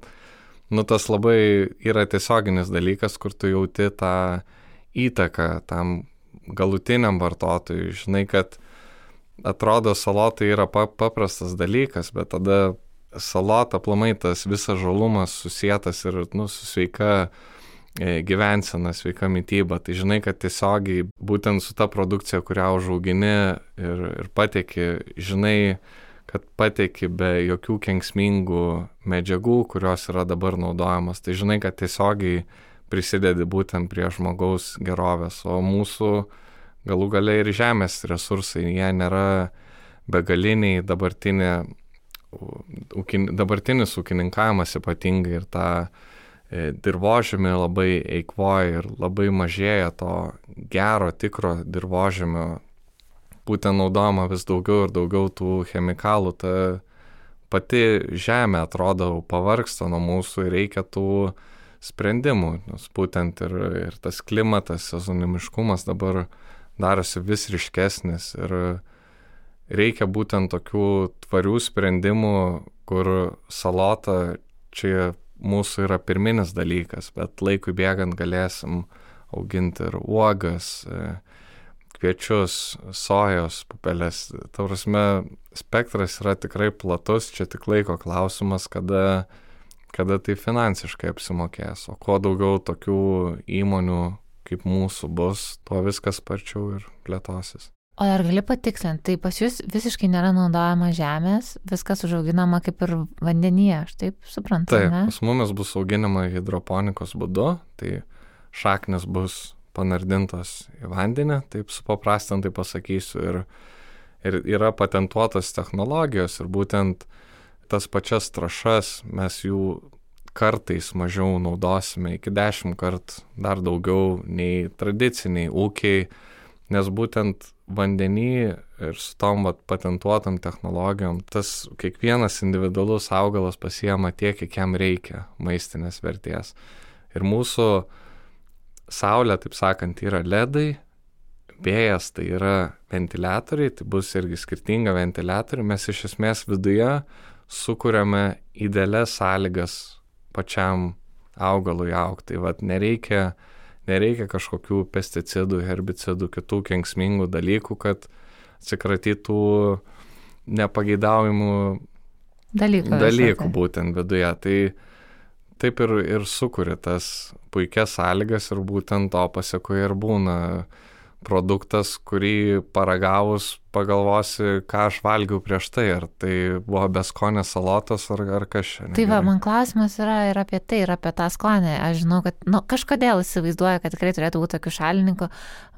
tas labai yra tiesioginis dalykas, kur tu jauti tą įtaką tam galutiniam vartotojui. Žinai, kad atrodo salotai yra paprastas dalykas, bet tada salota aplamai tas visas žalumas susietas ir su sveika gyvensena, sveika mityba. Tai žinai, kad tiesiogiai būtent su ta produkcija, kurią užaugini ir pateiki, žinai, kad pateiki be jokių kenksmingų medžiagų, kurios yra dabar naudojamas. Tai žinai, kad tiesiogiai prisidedi būtent prie žmogaus gerovės, o mūsų galų gale ir žemės resursai, jie nėra begaliniai, dabartinis ūkininkavimas ypatingai ir tą dirvožemį labai eikvoja ir labai mažėja to gero, tikro dirvožemio, būtent naudojama vis daugiau ir daugiau tų chemikalų, ta pati žemė atrodo pavargsta nuo mūsų ir reikia tų sprendimų, nes būtent ir tas klimatas, sezonimiškumas dabar darosi vis ryškesnis ir reikia būtent tokių tvarių sprendimų, kur salota čia mūsų yra pirminis dalykas, bet laikui bėgant galėsim auginti ir uogas, kviečius, sojos pupelės. Ta prasme, spektras yra tikrai platus, čia tik laiko klausimas, kada tai finansiškai apsimokės. O kuo daugiau tokių įmonių kaip mūsų bus, tuo viskas sparčiau ir plėtosis. O ar gali patikslinti, tai pas jūs visiškai nėra naudojama žemės, viskas užauginama kaip ir vandenyje, aš taip suprantu, taip, ne? Taip, pas mumis bus auginama hidroponikos būdu, tai šaknis bus panardintos į vandenį, taip supaprastintai pasakysiu, ir yra patentuotos technologijos ir būtent tas pačias trąšas mes jų kartais mažiau naudosime, iki 10 kartų dar daugiau nei tradiciniai ūkiai, nes būtent vandenį ir su tom patentuotam technologijom, tas kiekvienas individualus augalas pasiema tiek, kiek jam reikia maistinės vertės. Ir mūsų saulė, taip sakant, yra ledai, vėjas tai yra ventiliatoriai, tai bus irgi skirtinga ventiliatoriai, mes iš esmės viduje sukuriame idealias sąlygas pačiam augalui augti. Tai vat nereikia kažkokių pesticidų, herbicidų, kitų kenksmingų dalykų, kad atsikratytų nepageidaujamų dalykų būtent viduje. Tai taip ir sukuria tas puikias sąlygas ir būtent to pasekoje ir būna produktas, kurį paragavus pagalvosi, ką aš valgiau prieš tai, ar tai buvo beskonės salotos, ar kas čia. Tai va, man klausimas yra ir apie tai, ir apie tą skonį. Aš žinau, kad kažkodėl įsivaizduoju, kad tikrai turėtų būti tokių šalininkų,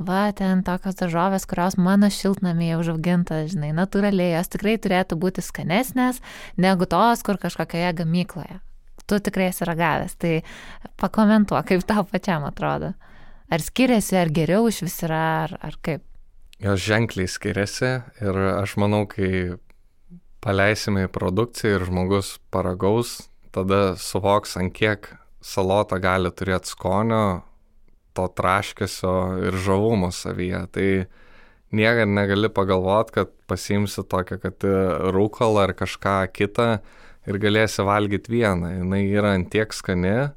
va, ten tokios daržovės, kurios mano šiltnamyje užauginta, žinai, natūraliai, jos tikrai turėtų būti skanesnės negu tos, kur kažkokioje gamykloje. Tu tikrai esi ragavęs, tai pakomentuok, kaip tau pačiam atrodo. Ar skiriasi, ar geriau iš vis yra, ar kaip? Jos ženkliai skiriasi ir aš manau, kai paleisime į produkciją ir žmogus paragaus, tada suvoks, ant kiek salota gali turėti skonio, to traškesio ir žavumo savyje. Tai niekad negali pagalvoti, kad pasiimsi tokią, kad rūkalą ar kažką kitą ir galėsi valgyti vieną. Jinai yra ant tiek skani.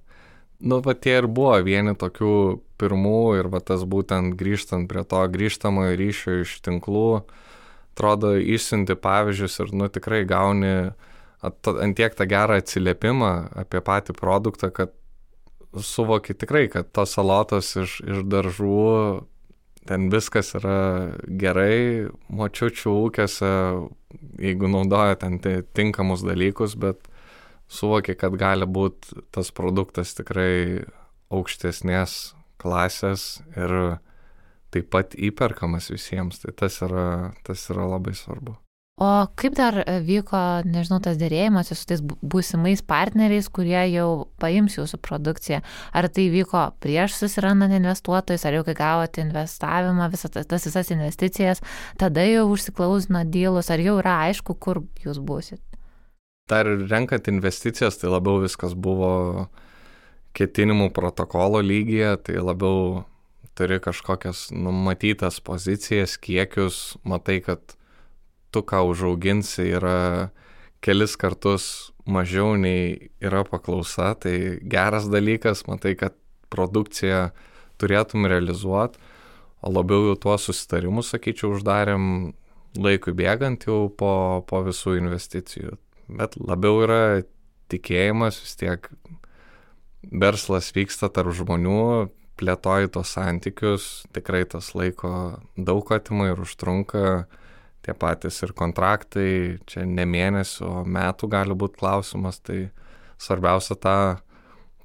Tie ir buvo vieni tokių pirmų ir tas būtent grįžtant prie to grįžtamojo ryšio iš tinklų, atrodo, išsiunti pavyzdžius ir tikrai gauni ant tiek tą gerą atsiliepimą apie patį produktą, kad suvoki tikrai, kad tos salotos iš daržų, ten viskas yra gerai, močiučių ūkiuose, jeigu naudoja ten tinkamus dalykus, bet suvoki, kad gali būti tas produktas tikrai aukštesnės klasės ir taip pat įperkamas visiems. Tai tas yra labai svarbu. O kaip dar vyko, nežinau, tas dėrėjimas su tais būsimais partneriais, kurie jau paims jūsų produkciją? Ar tai vyko prieš susirandant investuotojus, ar jau kai gavote investavimą, tas visas investicijas, tada jau užsiklausino dylus, ar jau yra aišku, kur jūs būsit? Dar renkant investicijas, tai labiau viskas buvo ketinimų protokolo lygyje, tai labiau turi kažkokias numatytas pozicijas, kiekius, matai, kad tu, ką užauginsi, yra kelis kartus mažiau nei yra paklausa, tai geras dalykas, matai, kad produkciją turėtum realizuoti, o labiau jau tuos susitarimus, sakyčiau, uždarėm laikui bėgant jau po visų investicijų. Bet labiau yra tikėjimas, vis tiek verslas vyksta tarp žmonių, plėtoji tos santykius, tikrai tas laiko daug atima ir užtrunka, tie patys ir kontraktai, čia ne mėnesių, o metų gali būti klausimas, tai svarbiausia tą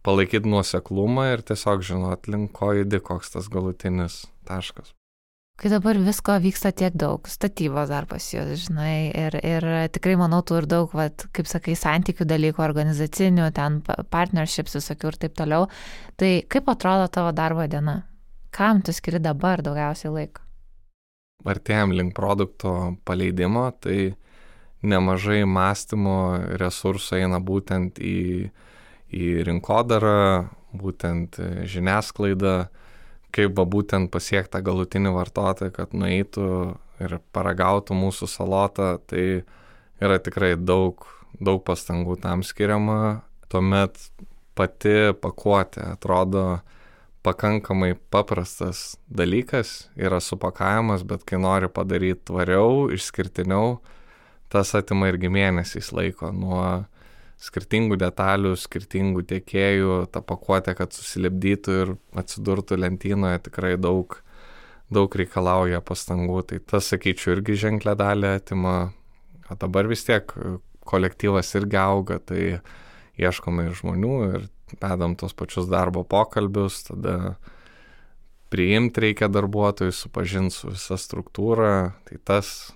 palaikyti nuoseklumą ir tiesiog žinot, link ko judi, koks tas galutinis taškas. Kai dabar visko vyksta tiek daug, statybos dar pas jūs, žinai, ir tikrai manau, tu ir daug, kaip sakai, santykių dalykų, organizacinių, ten partnerships visokių ir taip toliau, tai kaip atrodo tavo darbo diena? Kam tu skiri dabar daugiausiai laiko? Artėjam link produkto paleidimo, tai nemažai mąstymo resursų eina būtent į rinkodarą, būtent žiniasklaidą, kaip būtent pasiekti tą galutinį vartotoją, kad nueitų ir paragautų mūsų salotą, tai yra tikrai daug pastangų tam skiriama. Tuomet pati pakuotė atrodo pakankamai paprastas dalykas, yra supakavimas, bet kai nori padaryti tvariau, išskirtiniau, tas atima irgi mėnesiais laiko nuo skirtingų detalių, skirtingų tiekėjų, tą pakuotę, kad susilipdytų ir atsidurtų lentynoje, tikrai daug reikalauja pastangų. Tai tas, sakyčiau, irgi ženklę dalį atima. O dabar vis tiek kolektyvas irgi auga, tai ieškome ir žmonių ir vedam tos pačius darbo pokalbius, tada priimti reikia darbuotojus, supažinti su visa struktūra, tai tas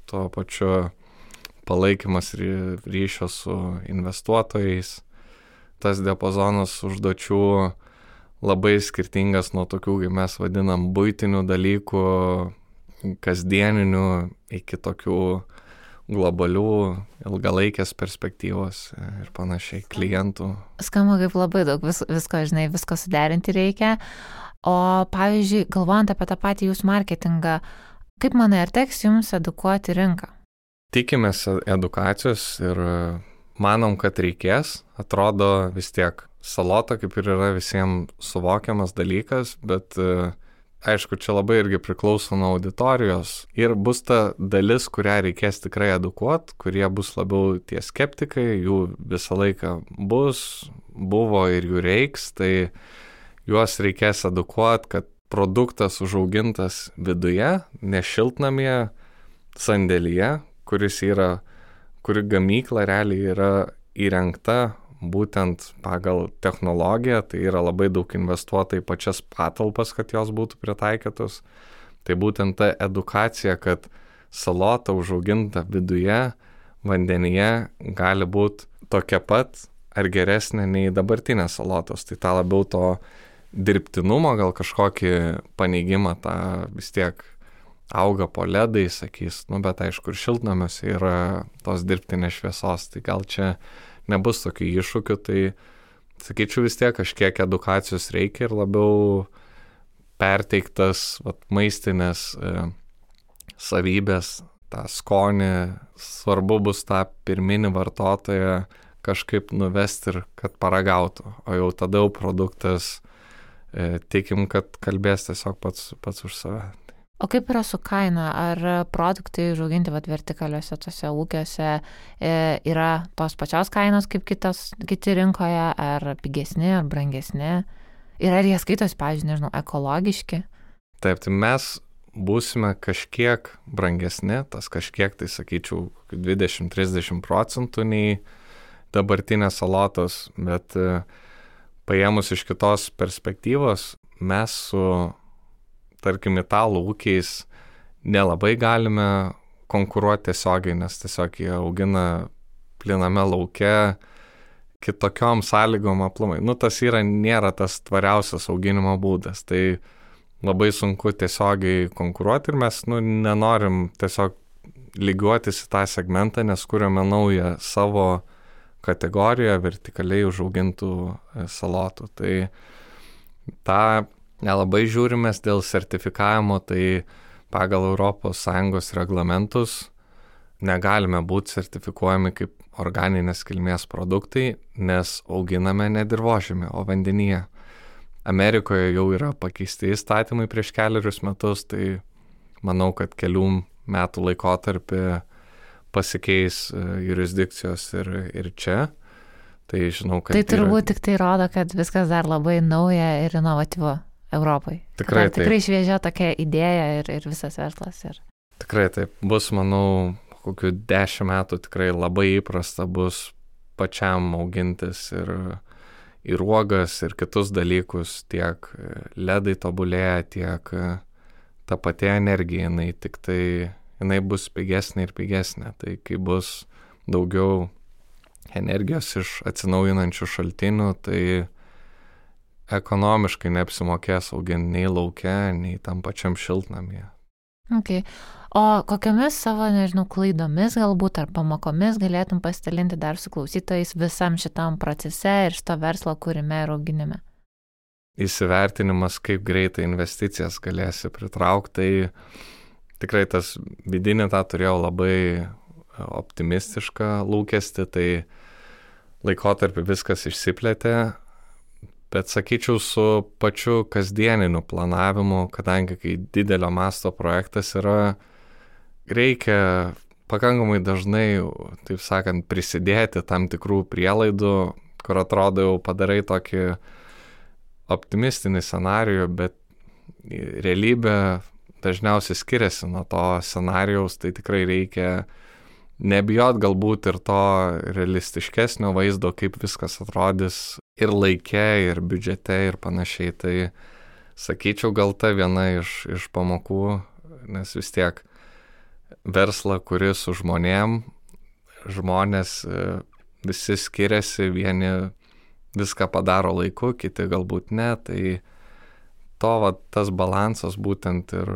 tuo pačiu palaikymas ryšio su investuotojais. Tas diapazonas užduočių labai skirtingas nuo tokių, kaip mes vadinam, buitinių dalykų, kasdieninių, iki tokių globalių, ilgalaikės perspektyvos ir panašiai klientų. Skamba kaip labai daug visko suderinti reikia. O pavyzdžiui, galvojant apie tą patį jūsų marketingą, kaip manai, ar teks jums edukuoti rinką? Tikimės edukacijos ir manom, kad reikės. Atrodo vis tiek salota kaip ir yra visiems suvokiamas dalykas, bet aišku, čia labai irgi priklauso nuo auditorijos. Ir bus ta dalis, kurią reikės tikrai edukuoti, kurie bus labiau tie skeptikai, jų visą laiką buvo ir jų reiks, tai juos reikės edukuoti, kad produktas užaugintas viduje, ne šiltnamyje, sandėlyje, kuri gamykla realiai yra įrengta būtent pagal technologiją, tai yra labai daug investuota į pačias patalpas, kad jos būtų pritaikytos. Tai būtent ta edukacija, kad salota užauginta viduje, vandenyje gali būti tokia pat ar geresnė nei dabartinės salotos. Tai tą labiau to dirbtinumo, gal kažkokį paneigimą, tą vis tiek auga po ledai, sakys, bet aišku, ir šiltnamiuose yra tos dirbtinės šviesos, tai gal čia nebus tokių iššūkių, tai sakyčiau vis tiek kažkiek edukacijos reikia ir labiau perteiktas maistinės savybės, tą skonį, svarbu bus tą pirminį vartotoją kažkaip nuvesti ir kad paragautų, o jau tada jau produktas tikim, kad kalbės tiesiog pats už save. O kaip yra su kaina? Ar produktai užauginti vertikaliuose tose ūkiuose yra tos pačios kainos kaip kiti rinkoje, ar pigesni, ar brangesni? Ir ar jie skaitos, pavyzdžiui, nežinau, ekologiški? Taip, tai mes būsime kažkiek brangesni, tas kažkiek, tai sakyčiau, 20-30% nei dabartinės salotos, bet paėmus iš kitos perspektyvos, mes su tarkim, italų ūkiais nelabai galime konkuruoti tiesiogiai, nes tiesiog jie augina pliname lauke kitokiom sąlygom aplamai. Tas nėra tas tvariausias auginimo būdas, tai labai sunku tiesiogiai konkuruoti ir mes nenorim tiesiog lygiuotis į tą segmentą, nes kuriame naują savo kategoriją vertikaliai užaugintų salotų. Tai tą nelabai žiūrimės dėl sertifikavimo, tai pagal ES reglamentus negalime būti sertifikuojami kaip organinės kilmės produktai, nes auginame ne dirvožemį, o vandenyje. Amerikoje jau yra pakeisti įstatymai prieš 4 metus, tai manau, kad kelių metų laikotarpį pasikeis jurisdikcijos ir čia. Tai žinau, kad tai turbūt tik tai rodo, kad viskas dar labai nauja ir inovatyvu Europai. Tikrai šviežia tokia idėja ir visas verslas. Tikrai taip. Bus, manau, kokių 10 metų tikrai labai įprasta bus pačiam augintis ir uogas, ir kitus dalykus, tiek ledai tobulėja, tiek ta pati energija, jinai bus pigesnė ir pigesnė. Tai kai bus daugiau energijos iš atsinaujinančių šaltinių, tai ekonomiškai neapsimokės auginti nei lauke, nei tam pačiam šiltnamyje. Okay. O kokiamis savo, klaidomis galbūt ar pamokomis galėtum pasidalinti dar su klausytojais visam šitam procese ir šito verslo kūrime ir auginime? Įsivertinimas, kaip greitai investicijas galėsi pritraukti, tai tikrai tas vidinį tą turėjau labai optimistišką lūkestį, tai laikotarpį viskas išsiplėtė. Bet sakyčiau, su pačiu kasdieniniu planavimu, kadangi kai didelio masto projektas yra, reikia pakankamai dažnai, taip sakant, prisidėti tam tikrų prielaidų, kur atrodo jau padarai tokį optimistinį scenarijų, bet realybė dažniausiai skiriasi nuo to scenarijaus, tai tikrai reikia nebijot galbūt ir to realistiškesnio vaizdo, kaip viskas atrodys ir laike, ir biudžete, ir panašiai. Tai sakyčiau, gal ta viena iš pamokų, nes vis tiek verslą, kuris su žmonėm, žmonės visi skiriasi, vieni viską padaro laiku, kiti galbūt ne, tai tas balansas būtent ir...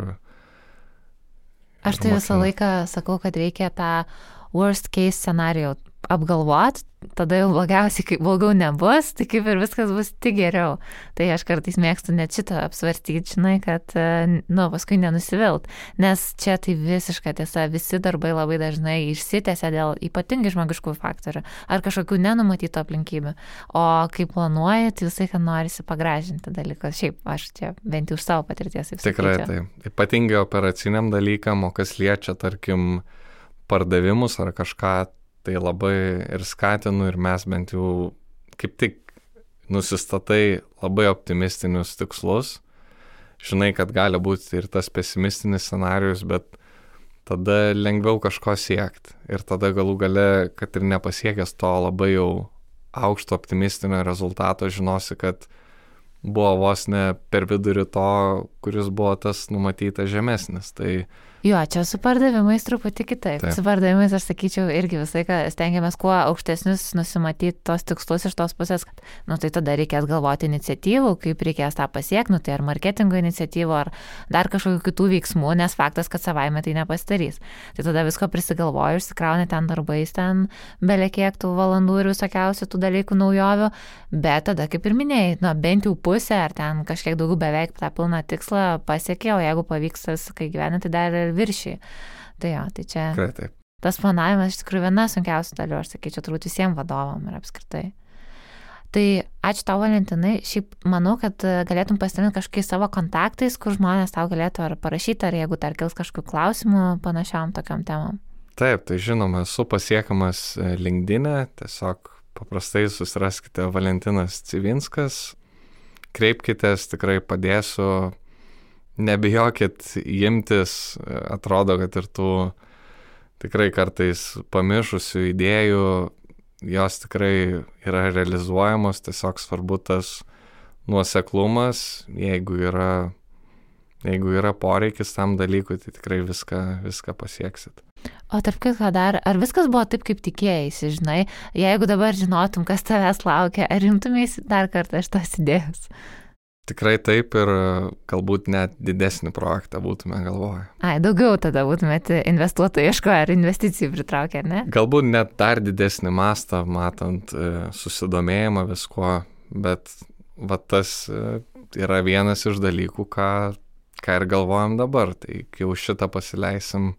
Aš tai visą laiką sakau, kad reikia tą worst case scenario apgalvot, tada jau blogiausiai, kai blogiau nebus, tai kaip ir viskas bus tik geriau. Tai aš kartais mėgstu net šitą apsvarstyti, žinai, kad, paskui nenusivilt. Nes čia tai visiška tiesa, visi darbai labai dažnai išsitęsia dėl ypatingai žmogiškų faktorių ar kažkokių nenumatytų aplinkybių. O kai planuoji, tai visai, kad norisi pagražinti dalykus. Šiaip aš čia bent jau už savo patirties. Tikrai tai. Ypatingai operaciniam dalykam, o kas liečia, tarkim, pardavimus ar kažką, tai labai ir skatinu ir mes bent jau kaip tik nusistatai labai optimistinius tikslus. Žinai, kad gali būti ir tas pesimistinis scenarijus, bet tada lengviau kažko siekti. Ir tada galų gale, kad ir nepasiekęs to labai jau aukšto optimistinio rezultato, žinosi, kad buvo vos ne per vidurį to, kuris buvo tas numatytas žemesnis. Tai jo, čia su pardavimais truputį kitaip. Su pardavimais, aš sakyčiau, irgi visai, kad stengiamės kuo aukštesnius nusimatyti tos tikslus iš tos pusės, kad, tai tada reikės galvoti iniciatyvų, kaip reikės tą pasiekti, tai ar marketingo iniciatyvų, ar dar kažkokių kitų veiksmų, nes faktas, kad savaime tai nepasidarys. Tai tada visko prisigalvoju, išsikrauni ten darbais, ten belekiek tų valandų ir visokiausių tų dalykų naujovių, bet tada, kaip ir minėjai, bent jau pusę, ar ten kažkiek daugiau beveik tą pilną tikslą pasiekė, o jeigu pavyks viską gyventi, tai dar viršiai. Tai jo, tai čia taip. Tas planavimas iš tikrųjų viena sunkiausių dalių, aš sakyčiau, turbūt visiems vadovam ir apskritai. Tai ačiū tau, Valentinai. Šiaip manau, kad galėtum pasidalinti kažkokiais savo kontaktais, kur žmonės tau galėtų ar parašyti, ar jeigu dar kils kažkokių klausimų panašiam tokiam temam. Taip, tai žinoma, esu pasiekamas LinkedIn'e, tiesiog paprastai susiraskite Valentinas Civinskas, kreipkitės, tikrai padėsiu. Nebijokit imtis, atrodo, kad ir tų tikrai kartais pamišusių idėjų, jos tikrai yra realizuojamos, tiesiog svarbu tas nuoseklumas, jeigu yra poreikis tam dalykui, tai tikrai viską pasieksit. O tarp kitko dar, ar viskas buvo taip, kaip tikėjaisi, žinai, jeigu dabar žinotum, kas tavęs laukia, ar rimtumėsi dar kartą šitos idėjos? Tikrai taip ir galbūt net didesnį projektą būtume galvoję. Daugiau tada būtumėte investuotojų ieškoję ar investicijų pritraukę, ar ne? Galbūt net dar didesnį mastą, matant susidomėjimą viskuo, bet tas yra vienas iš dalykų, ką ir galvojam dabar. Tai kai jau šitą pasileisim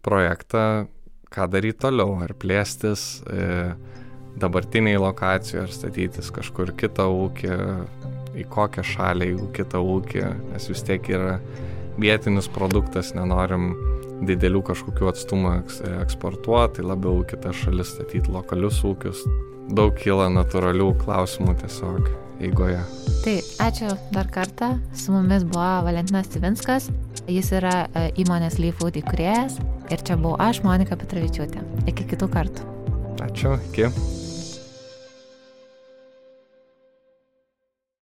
projektą, ką daryti toliau, ar plėstis dabartiniai lokacijai, ar statytis kažkur kitą ūkį, į kokią šalį, jeigu kitą ūkį, nes vis tiek yra vietinis produktas, nenorim didelių kažkokių atstumų eksportuoti, tai labiau kitas šalis statyti lokalius ūkius. Daug kyla natūralių klausimų tiesiog eigoje. Tai ačiū dar kartą. Su mumis buvo Valentinas Civinskas. Jis yra įmonės Leafood įkūrėjas ir čia buvau aš, Monika Petravičiūtė. Iki kitų kartų. Ačiū, iki.